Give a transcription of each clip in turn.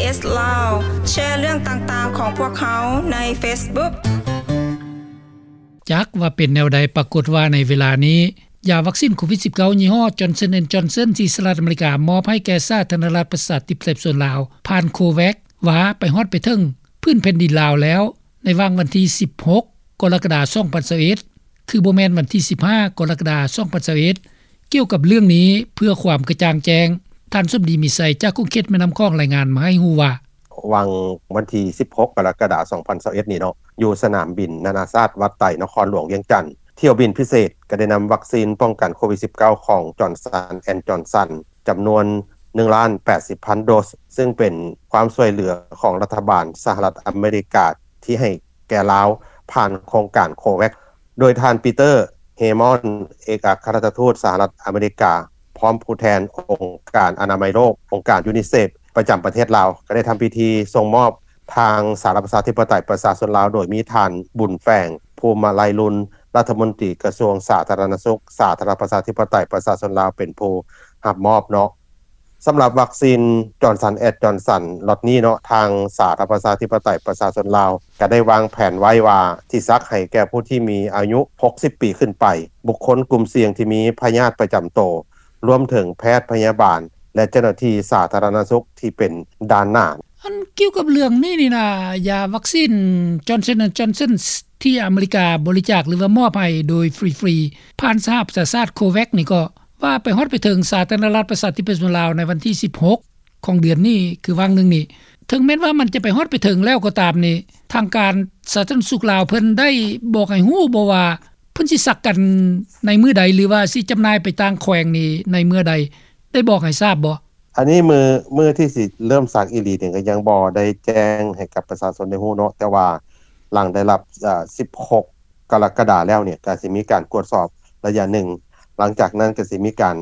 ເອສ ລາວ ແຊເລື່ອງຕ່າງໆຂອງພວກເຮົາໃນເຟສບຸກ. ຈັກວ່າເປັນແນວໃດ, ປາກົດວ່າໃນເວລານີ້ ຢາວັກຊິນໂຄວິດສິບເກົ້າ ຍີ່ຫໍ້ Johnson and Johnson ທີ່ສະຫະລັດອາເມລິກາມອບໃຫ້ແກ່ສາທາລະນະລັດປະຊາທິປະໄຕປະຊາຊົນລາວ ຜ່ານ COVAX ວ່າໄປຮອດໄປເຖິງພື້ນແຜ່ນດິນລາວແລ້ວ ໃນຫວ່າງວັນທີສິບຫົກ ກໍລະກະດາ ສອງພັນຊາວເອັດ ຄືບໍ່ແມ່ນວັນທີສິບຫ້າ ກໍລະກະດາ ສອງພັນຊາວເອັດ. ກ່ຽວກັບເລື່ອງນີ້ ເພື່ອຄວາມກະຈ່າງແຈ້ງ, ທ່ານສົມດີ ມີໄຊ ຈາກຂົງເຂດແມ່ນ້ຳຂອງ ລາຍງານມາໃຫ້ຮູ້ວ່າ: ຫວ່າງວັນທີສິບຫົກ ກໍລະກະດາ ສອງພັນຊາວເອັດນີ້ເນາະ, ຢູ່ສະໜາມບິນນານາຊາດວັດໄຕ ນະຄອນຫຼວງວຽງຈັນ, ຖ້ຽວບິນພິເສດກໍໄດ້ນຳວັກຊິນປ້ອງກັນໂຄວິດສິບເກົ້າ ຂອງ Johnson and Johnson ຈຳນວນໜຶ່ງລ້ານແປດສິບພັນໂດສ, ຊຶ່ງເປັນຄວາມຊ່ວຍເຫຼືອຂອງລັດຖະບານສະຫະລັດອາເມລິກາ ທີ່ໃຫ້ແກ່ລາວ ຜ່ານໂຄງການ COVAX. ໂດຍທ່ານ Peter Hammond ເອກອັກຄະລັດຖະທູດສະຫະລັດອາເມລິກາ ພ້ອມຜູ້ແທນອົງການອະນາໄມໂລກ, ອົງການ UNICEF ປະຈຳປະເທດລາວ ກໍໄດ້ທຳພິທີສົ່ງມອບທາງສາທາລະນະລັດປະຊາທິປະໄຕປະຊາຊົນລາວ, ໂດຍມີທ່ານ ບຸນແຝງ ພູມມະໄລລຸນ ລັດຖະມົນຕີກະຊວງສາທາລະນະສຸກ ສາທາລະນະລັດປະຊາທິປະໄຕປະຊາຊົນລາວ ເປັນຜູ້ຮັບມອບເນາະ. ສຳລັບວັກຊິນ Johnson and Johnson ລັອດນີ້ເນາະ, ທາງສາທາລະນະລັດປະຊາທິປະໄຕປະຊາຊົນລາວ ກໍໄດ້ວາງແຜນໄວ້ວ່າຊິສັກໃຫ້ແກ່ຜູ້ທີ່ມີອາຍຸຫົກສິບປີຂຶ້ນໄປ, ບຸກຄົນກຸ່ມສ່ຽງທີ່ມີພະຍາດປະຈຳໂຕ, ລວມເຖິງແພດພະຍາບານ ແລະ ເຈົ້າໜ້າທີ່ສາທາລະນະສຸກທີ່ເປັນດ່ານໜ້າ. ອັນກ່ຽວກັບເລື່ອງນີ້ນີ້ນະ, ຢາວັກຊິນ Johnson and Johnson ທີ່ອາເມລິກາບໍລິຈາກ ຫຼືວ່າມອບໃຫ້ໂດຍຟຣີໆ ຜ່ານສະຫະປະຊາຊາດ COVAX ນີ້ກໍວ່າໄປຮອດໄປເຖິງສາທາລະນະລັດປະຊາທິປະໄຕປະຊາຊົນລາວໃນວັນທີສິບຫົກ ຂອງເດືອນນີ້ ຄືຫວ່າງໜຶ່ງນີ້. ເຖິງແມ່ນວ່າມັນຈະໄປຮອດໄປເຖິງແລ້ວກໍຕາມນີ້, ທາງການສາທາລະນະສຸກລາວເພິ່ນໄດ້ບອກໃຫ້ຮູ້ບໍ່ວ່າ ເພິ່ນຊິສັກກັນໃນມື້ໃດ ຫຼືວ່າຊິຈຳໜ່າຍໄປຕ່າງແຂວງນີ້ໃນເມື່ອໃດ ໄດ້ບອກໃຫ້ຊາບບໍ່? ອັນນີ້ມື້ ມື້ທີ່ຊິເລີ່ມສັກອີ່ຫຼີນີ້ກໍຍັງບໍ່ໄດ້ແຈ້ງໃຫ້ກັບປະຊາຊົນໄດ້ຮູ້ເນາະ, ແຕ່ວ່າຫຼັງໄດ້ຮັບ ເອີ່ ສິບຫົກ ກໍລະກະດາແລ້ວນີ້ ກໍຊິມີການກວດສອບໄລຍະໜຶ່ງ, ຫຼັງຈາກນັ້ນກໍຊິມີການ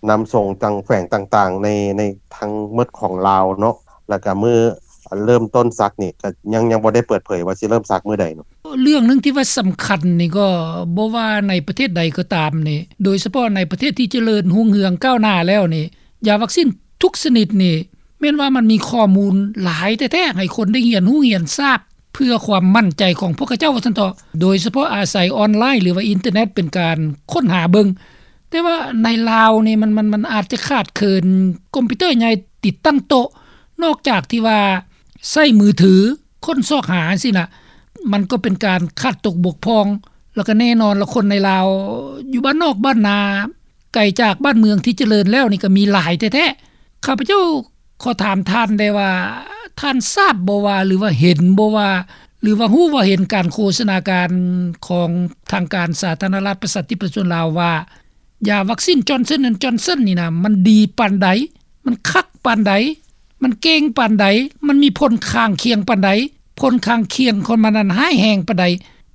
ນຳສົ່ງທາງແຂວງຕ່າງໆ ໃນ ໃນທັງໝົດຂອງລາວເນາະ, ແລ້ວກໍມື້ເລີ່ມຕົ້ນສັກນີ້ ກໍຍັງ ຍັງບໍ່ໄດ້ເປີດເຜີຍວ່າຊິເລີ່ມສັກມື້ໃດເນາະ. ເລື່ອງໜຶ່ງທີ່ວ່າສຳຄັນນີ້ ກໍບໍ່ວ່າໃນປະເທດໃດກໍຕາມນີ້, ໂດຍສະເພາະໃນປະເທດທີ່ຈະເລີນຮຸ່ງເຮືອງກ້າວໜ້າແລ້ວນີ້, ຢາວັກຊິນທຸກຊະນິດນີ້ ແມ່ນວ່າມັນມີຂໍ້ມູນຫຼາຍແທ້ໆ ໃຫ້ຄົນໄດ້ຮຽນຮູ້ຮຽນຊາບ ເພື່ອຄວາມໝັ້ນໃຈຂອງພວກເຂົາເຈົ້າວ່າຊັ້ນເຖາະ, ໂດຍສະເພາະອາໄສອອນລາຍ ຫຼືວ່າອິນເຕີເນັດ ເປັນການຄົ້ນຫາເບິ່ງ. ແຕ່ວ່າໃນລາວນີ້ ມັນ ມັນ ມັນອາດຈະຂາດເຂີນຄອມພິວເຕີໃຫຍ່ຕິດຕັ້ງໂຕະ, ນອກຈາກທີ່ວ່າໃຊ້ມືຖືຄົ້ນຊອກຫາຈັ່ງຊີ້ນະ, ມັນກໍເປັນການຂາດຕົກບົກຜ່ອງ. ແລ້ວກໍແນ່ນອນລະ ຄົນໃນລາວຢູ່ບ້ານນອກບ້ານນາ ໄກຈາກບ້ານເມືອງທີ່ຈະເລີນແລ້ວນີ້ກໍມີຫຼາຍແທ້ໆ. ຂ້າພະເຈົ້າຂໍຖາມທ່ານໄດ້ວ່າ ທ່ານຊາບບໍ່ວ່າ ຫຼືວ່າເຫັນບໍ່ວ່າ ຫຼືວ່າຮູ້ວ່າເຫັນການໂຄສະນາການຂອງທາງການສາທາລະນະລັດປະຊາທິປະຊາຊົນລາວວ່າ ຢາວັກຊິນ Johnson and Johnson ນີ້ນະ ມັນດີປານໃດ? ມັນຄັກປານໃດ? ມັນເກັ່ງປານໃດ? ມັນມີຜົນຂ້າງຄຽງປານໃດ? ຜົນຂ້າງຄຽງຂອງມັນນັ້ນຮ້າຍແຮງປານໃດ?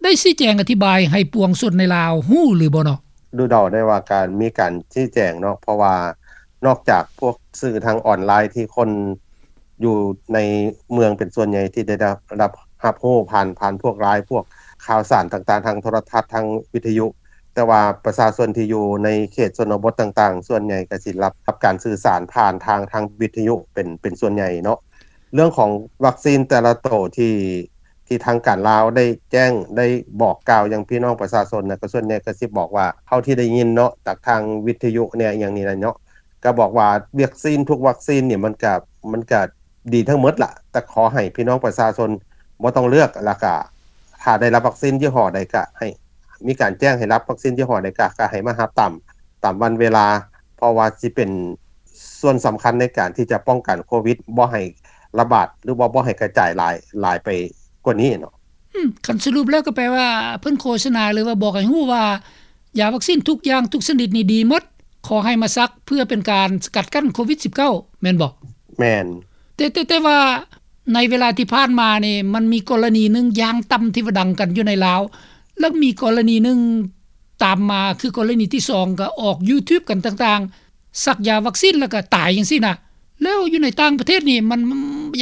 ໄດ້ຊີ້ແຈງອະທິບາຍໃຫ້ປວງຊົນໃນລາວຮູ້ຫຼືບໍ່ເນາະ? ດູເດົາໄດ້ວ່າການ ມີການຊີ້ແຈງເນາະ, ເພາະວ່ານອກຈາກພວກສື່ທາງອອນລາຍທີ່ຄົນຢູ່ໃນເມືອງເປັນສ່ວນໃຫຍ່ທີ່ໄດ້ ໄດ້ ໄດ້ຮັບ ຮັບຮູ້ຜ່ານ ຜ່ານພວກລາຍ ພວກຂ່າວສານຕ່າງໆ ທາງໂທລະທັດ ທາງວິທະຍຸ, ແຕ່ວ່າປະຊາຊົນທີ່ຢູ່ໃນເຂດຊົນນະບົດຕ່າງໆ ສ່ວນໃຫຍ່ກໍຊິຮັບ ຮັບການສື່ສານຜ່ານທາງ ທາງວິທະຍຸເປັນ ເປັນສ່ວນໃຫຍ່ເນາະ. ເລື່ອງຂອງວັກຊິນແຕ່ລະໂຕທີ່ ທີ່ທາງການລາວໄດ້ແຈ້ງ ໄດ້ບອກກ່າວຫຍັງພີ່ນ້ອງປະຊາຊົນນະ ກໍສ່ວນໃຫຍ່ກໍຊິບອກວ່າ ເທົ່າທີ່ໄດ້ຍິນເນາະ ຈາກທາງວິທະຍຸແດ່ ອີ່ຫຍັງນີ້ນະເນາະ, ກໍບອກວ່າວັກຊິນທຸກວັກຊິນນີ້ ມັນກະ ມັນກະດີທັງໝົດລະ, ແຕ່ຂໍໃຫ້ພີ່ນ້ອງປະຊາຊົນບໍ່ຕ້ອງເລືອກ, ແລ້ວກະຖ້າໄດ້ຮັບວັກຊິນຍີ່ຫໍ້ໃດ ກະໃຫ້ມີການແຈ້ງໃຫ້ຮັບວັກຊິນຍີ່ຫໍ້ໃດ ກະ ກະໃຫ້ມາຮັບຕາມ ຕາມວັນເວລາ, ເພາະວ່າຊິເປັນສ່ວນສຳຄັນໃນການທີ່ຈະປ້ອງກັນໂຄວິດ ບໍ່ໃຫ້ລະບາດ ຫຼືວ່າບໍ່ໃຫ້ກະຈາຍຫຼາຍ ຫຼາຍໄປກວ່ານີ້ເນາະ. ອືມ ຄັນສະຫຼຸບແລ້ວກໍແປວ່າ ເພິ່ນໂຄສະນາ ຫຼືວ່າບອກໃຫ້ຮູ້ວ່າ ຢາວັກຊິນທຸກຢ່າງທຸກຊະນິດນີ້ດີໝົດ, ຂໍໃຫ້ມາສັກເພື່ອເປັນການສະກັດກັ້ນໂຄວິດສິບເກົ້າ ແມ່ນບໍ່? ແມ່ນ. ແຕ່ ແຕ່ ແຕ່ວ່າໃນເວລາທີ່ຜ່ານມານີ້ ມັນມີກໍລະນີໜຶ່ງຢ່າງຕ່ຳທີ່ວ່າດັງກັນຢູ່ໃນລາວ, ແລ້ວມີກໍລະນີໜຶ່ງຕາມມາ ຄືກໍລະນີທີສອງ ກໍອອກ YouTube ກັນຕ່າງໆ ສັກຢາວັກຊິນແລ້ວກໍຕາຍຈັ່ງຊີ້ນະ. ແລ້ວຢູ່ໃນຕ່າງປະເທດນີ້ ມັນ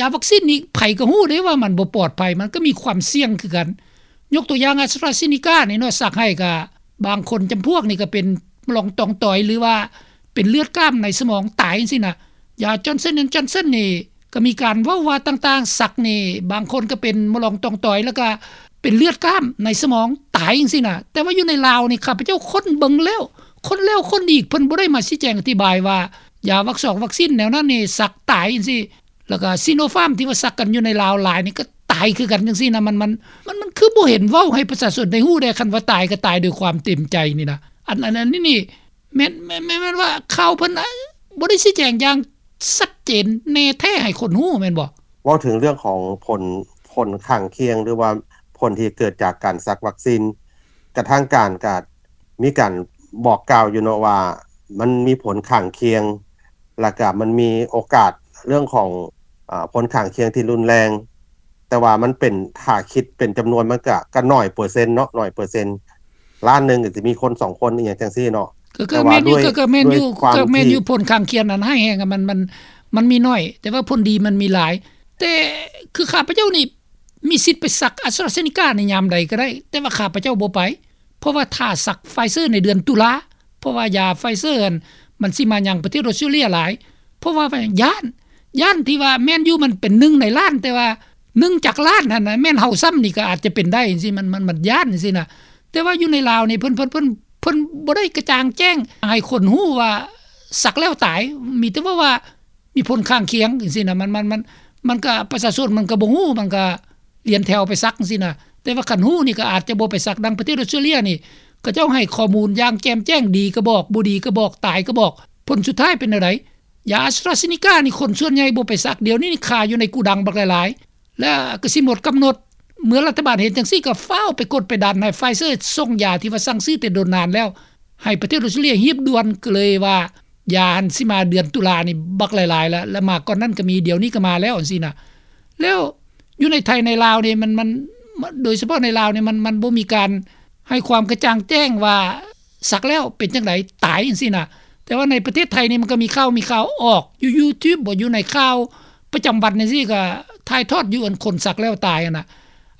ຢາວັກຊິນນີ້ໃຜກໍຮູ້ເດ້ວ່າມັນບໍ່ປອດໄພ, ມັນກໍມີຄວາມສ່ຽງຄືກັນ. ຍົກຕົວຢ່າງ AstraZeneca ນີ້ເນາະ, ສັກໃຫ້ກໍບາງຄົນຈຳພວກນີ້ກໍເປັນລອງຕອງຕອຍ ຫຼືວ່າເປັນເລືອດກ້າມໃນສະໝອງຕາຍຈັ່ງຊີ້ນະ. ຢາ Johnson and Johnson ນີ້ ກໍມີການເວົ້າວ່າຕ່າງໆ ສັກນີ້ບາງຄົນກໍເປັນມະຫຼອງຕ່ອງຕອຍ ແລ້ວກໍເປັນເລືອດກ້າມໃນສະໝອງ ຕາຍຈັ່ງຊີ້ນະ. ແຕ່ວ່າຢູ່ໃນລາວນີ້ ຂ້າພະເຈົ້າຄົ້ນເບິ່ງແລ້ວ ຄົ້ນແລ້ວຄົ້ນອີກ ເພິ່ນບໍ່ໄດ້ມາຊີ້ແຈງອະທິບາຍວ່າ ຢາວັກຊອກວັກຊີນແນວນັ້ນນີ້ສັກຕາຍຈັ່ງຊີ້ ແລ້ວກໍຊີໂນຟາມທີ່ວ່າສັກກັນຢູ່ໃນລາວຫຼາຍນີ້ກໍຕາຍຄືກັນຈັ່ງຊີ້ນະ. ມັນ ມັນ ມັນ ມັນຄືບໍ່ເຫັນເວົ້າໃຫ້ປະຊາຊົນໄດ້ຮູ້ແດ່ ຄັນວ່າຕາຍກໍຕາຍໂດຍຄວາມເຕັມໃຈນີ້ນະ. ອັນ ອັນ ອັນນີ້ນີ້ ແມ່ນ ແມ່ນ ແມ່ນ ແມ່ນວ່າຂ່າວເພິ່ນ ອາ ບໍ່ໄດ້ຊີ້ແຈງຢ່າງຊັດເຈນແນ່ແທ້ໃຫ້ຄົນຮູ້ແມ່ນບໍ່? ເວົ້າເຖິງເລື່ອງຂອງຜົນ ຜົນຂ້າງຄຽງ ຫຼືວ່າຜົນທີ່ເກີດຈາກການສັກວັກຊີນ ກະທາງການກະມີການບອກກ່າວຢູ່ເນາະວ່າ ມັນມີຜົນຂ້າງຄຽງ ແລ້ວກະມັນມີໂອກາດເລື່ອງຂອງ ອາ ຜົນຂ້າງຄຽງທີ່ຮຸນແຮງ ແຕ່ວ່າມັນເປັນ ຖ້າຄິດເປັນຈຳນວນມັນກະ ກະໜ້ອຍເປີເຊັນເນາະ ໜ້ອຍເປີເຊັນ ລ້ານໜຶ່ງກໍຊິມີຄົນສອງຄົນ ອີ່ຫຍັງຈັ່ງຊີ້ເນາະ. ກໍ ກໍແມ່ນຢູ່ ກໍ ກໍແມ່ນຢູ່ ກໍແມ່ນຢູ່ ຜົນຂ້າງຄຽງນັ້ນຮ້າຍແຮງ ມັນ ມັນ ມັນມີໜ້ອຍ ແຕ່ວ່າຜົນດີມັນມີຫຼາຍ. ແຕ່ຄືຂ້າພະເຈົ້ານີ້ມີສິດໄປສັກ AstraZeneca ໃນຍາມໃດກໍໄດ້ ແຕ່ວ່າຂ້າພະເຈົ້າບໍ່ໄປ ເພາະວ່າຖ້າສັກ Pfizer ໃນເດືອນຕຸລາ ເພາະວ່າຢາ Pfizer ຫັ້ນ ມັນຊິມາຍັງປະເທດອອສເຕຣເລັຍຫຼາຍ ເພາະວ່າຢ້ານ ຢ້ານທີ່ວ່າແມ່ນຢູ່ ມັນເປັນໜຶ່ງໃນລ້ານ ແຕ່ວ່າໜຶ່ງຈາກລ້ານຫັ້ນນະ ແມ່ນເຮົາຊ້ຳນີ້ກໍອາດຈະເປັນໄດ້ຈັ່ງຊີ້ ມັນ ມັນ ມັນຢ້ານຈັ່ງຊີ້ນະ. ແຕ່ວ່າຢູ່ໃນລາວນີ້ ເພິ່ນ ເພິ່ນ ເພິ່ນ ເພິ່ນບໍ່ໄດ້ກະຈ່າງແຈ້ງໃຫ້ຄົນຮູ້ວ່າສັກແລ້ວຕາຍ ມີແຕ່ເວົ້າວ່າມີຜົນຂ້າງຄຽງຈັ່ງຊີ້ນະ. ມັນ ມັນ ມັນ ມັນກະ ປະຊາຊົນມັນກະບໍ່ຮູ້ ມັນກະລຽນແຖວໄປສັກຈັ່ງຊີ້ນະ. ແຕ່ວ່າຄັນຮູ້ນີ້ກໍອາດຈະບໍ່ໄປສັກ. ດັ່ງປະເທດອອສເຕຣເລັຍນີ້ ເຂົາເຈົ້າໃຫ້ຂໍ້ມູນຢ່າງແຈ່ມແຈ້ງ ດີກໍບອກ ບໍ່ດີກໍບອກ ຕາຍກໍບອກ. ຜົນສຸດທ້າຍເປັນແນວໃດ? ຢາ AstraZeneca ນີ້ຄົນສ່ວນໃຫຍ່ບໍ່ໄປສັກ ດຽວນີ້ນີ້ຄາຢູ່ໃນໂກດັງບັກຫຼາຍໆ ແລ້ວກໍຊິໝົດກຳນົດ. ເມື່ອລັດຖະບານເຫັນຈັ່ງຊີ້ ກໍຟ້າວໄປກົດໄປດັນໃຫ້ Pfizer ສົ່ງຢາທີ່ວ່າສັ່ງຊື້ແຕ່ດົນນານແລ້ວ ໃຫ້ປະເທດອອສເຕຣເລັຍຮີບດ່ວນ. ກໍເລີຍວ່າຢາຫັ້ນຊິມາເດືອນຕຸລານີ້ບັກຫຼາຍໆ ແລ້ວ ແລ້ວມາກ່ອນນັ້ນກໍມີ ດຽວນີ້ກໍມາແລ້ວຈັ່ງຊີ້ນະ. ແລ້ວຢູ່ໃນໄທໃນລາວນີ້ ມັນ ມັນ ໂດຍສະເພາະໃນລາວນີ້ ມັນ ມັນບໍ່ມີການໃຫ້ຄວາມກະຈ່າງແຈ້ງວ່າສັກແລ້ວເປັນຈັ່ງໃດ ຕາຍຈັ່ງຊີ້ນະ. ແຕ່ວ່າໃນປະເທດໄທນີ້ ມັນກໍມີຂ່າວ ມີຂ່າວອອກຢູ່ YouTube ບໍ ຢູ່ໃນຂ່າວປະຈຳວັນຈັ່ງຊີ້ ກໍຖ່າຍທອດຢູ່ ອັນຄົນສັກແລ້ວຕາຍຫັ້ນນະ.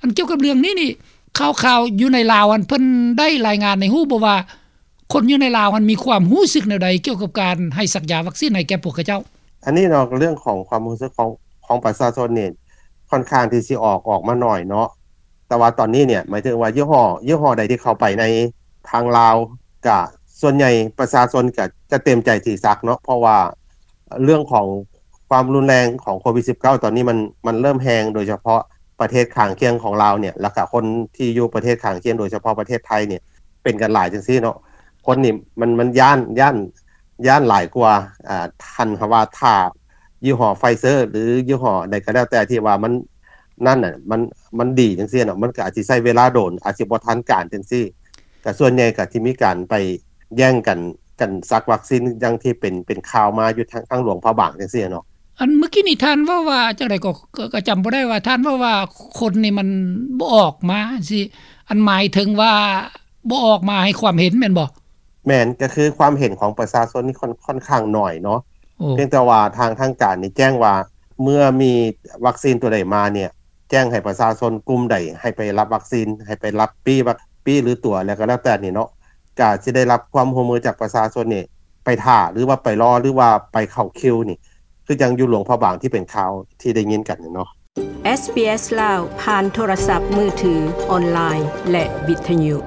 ອັນກ່ຽວກັບເລື່ອງນີ້ນີ້ ຂ່າວໆຢູ່ໃນລາວຫັ້ນ ເພິ່ນໄດ້ລາຍງານໃຫ້ຮູ້ບໍ່ວ່າ ຄົນຢູ່ໃນລາວຫັ້ນມີຄວາມຮູ້ສຶກແນວໃດກ່ຽວກັບການໃຫ້ສັກຢາວັກຊີນໃຫ້ແກ່ພວກເຂົາເຈົ້າ? ອັນນີ້ເນາະ ເລື່ອງຂອງຄວາມຮູ້ສຶກຂອງ ຂອງປະຊາຊົນນີ້ ຄ່ອນຂ້າງທີ່ຊິອອກ ອອກມາໜ້ອຍເນາະ. ແຕ່ວ່າຕອນນີ້ເນຍ ໝາຍເຖິງວ່າຍີ່ຫໍ້ ຍີ່ຫໍ້ໃດທີ່ເຂົ້າໄປໃນທາງລາວ ກະສ່ວນໃຫຍ່ປະຊາຊົນກະຈະເຕັມໃຈທີ່ສັກເນາະ ເພາະວ່າເລື່ອງຂອງຄວາມຮຸນແຮງຂອງໂຄວິດສິບເກົ້າ ຕອນນີ້ມັນ ມັນເລີ່ມແຮງ ໂດຍສະເພາະປະເທດຂ້າງຄຽງຂອງລາວເນຍ ແລ້ວກະຄົນທີ່ຢູ່ປະເທດຂ້າງຄຽງ ໂດຍສະເພາະປະເທດໄທເນຍ ເປັນກັນຫຼາຍຈັ່ງຊີ້ເນາະ. ຄົນນີ້ມັນ ມັນຢ້ານ ຢ້ານ ຢ້ານຫຼາຍກວ່າ ອາ ທ່ານຫາວ່າຖ້າຍີ່ຫໍ້ Pfizer ຫຼືຍີ່ຫໍ້ໃດກໍແລ້ວແຕ່ທີ່ວ່າມັນ ນັ້ນນະ ມັນ ມັນດີຈັ່ງຊີ້ເນາະ ມັນກໍອາດຊິໃຊ້ເວລາດົນ ອາດຊິບໍ່ທັນການຈັ່ງຊີ້ ກໍສ່ວນໃຫຍ່ກໍທີ່ມີການໄປແຍ່ງກັນ ກັນສັກວັກຊີນ ຢ່າງທີ່ເປັນ ເປັນຂ່າວມາຢູ່ທາງ ທາງຫຼວງພະບາງຈັ່ງຊີ້ເນາະ. ອັນເມື່ອກີ້ນີ້ທ່ານເວົ້າວ່າຈັ່ງໃດກໍ ກໍ ກໍຈຳບໍ່ໄດ້ວ່າ ທ່ານເວົ້າວ່າຄົນນີ້ມັນບໍ່ອອກມາຊີ້ ອັນໝາຍເຖິງວ່າບໍ່ອອກມາໃຫ້ຄວາມເຫັນແມ່ນບໍ່? ແມ່ນ ກໍຄືຄວາມເຫັນຂອງປະຊາຊົນນີ້ຄ່ອນ ຄ່ອນຂ້າງໜ້ອຍເນາະ. ໂອ້ ພຽງແຕ່ວ່າທາງ ທາງການນີ້ແຈ້ງວ່າ ເມື່ອມີວັກຊີນຕົວໃດມາເນຍ ແຈ້ງໃຫ້ປະຊາຊົນກຸ່ມໃດໃຫ້ໄປຮັບວັກຊີນ ໃຫ້ໄປຮັບປີ້ວັກ ປີ້ ຫຼືຕົວະ ແລ້ວກໍແລ້ວແຕ່ນີ້ເນາະ ກະຊິໄດ້ຮັບຄວາມຮ່ວມມືຈາກປະຊາຊົນນີ້ ໄປຖ້າ ຫຼືວ່າໄປລໍ ຫຼືວ່າໄປເຂົ້າຄິວນີ້ ຄືຈັ່ງຢູ່ຫຼວງພະບາງທີ່ເປັນຂ່າວທີ່ໄດ້ຍິນກັນນີ້ເນາະ. ເອສບີເອສ ລາວ ຜ່ານໂທລະສັບມືຖື, ອອນລາຍ ແລະ ວິທະຍຸ.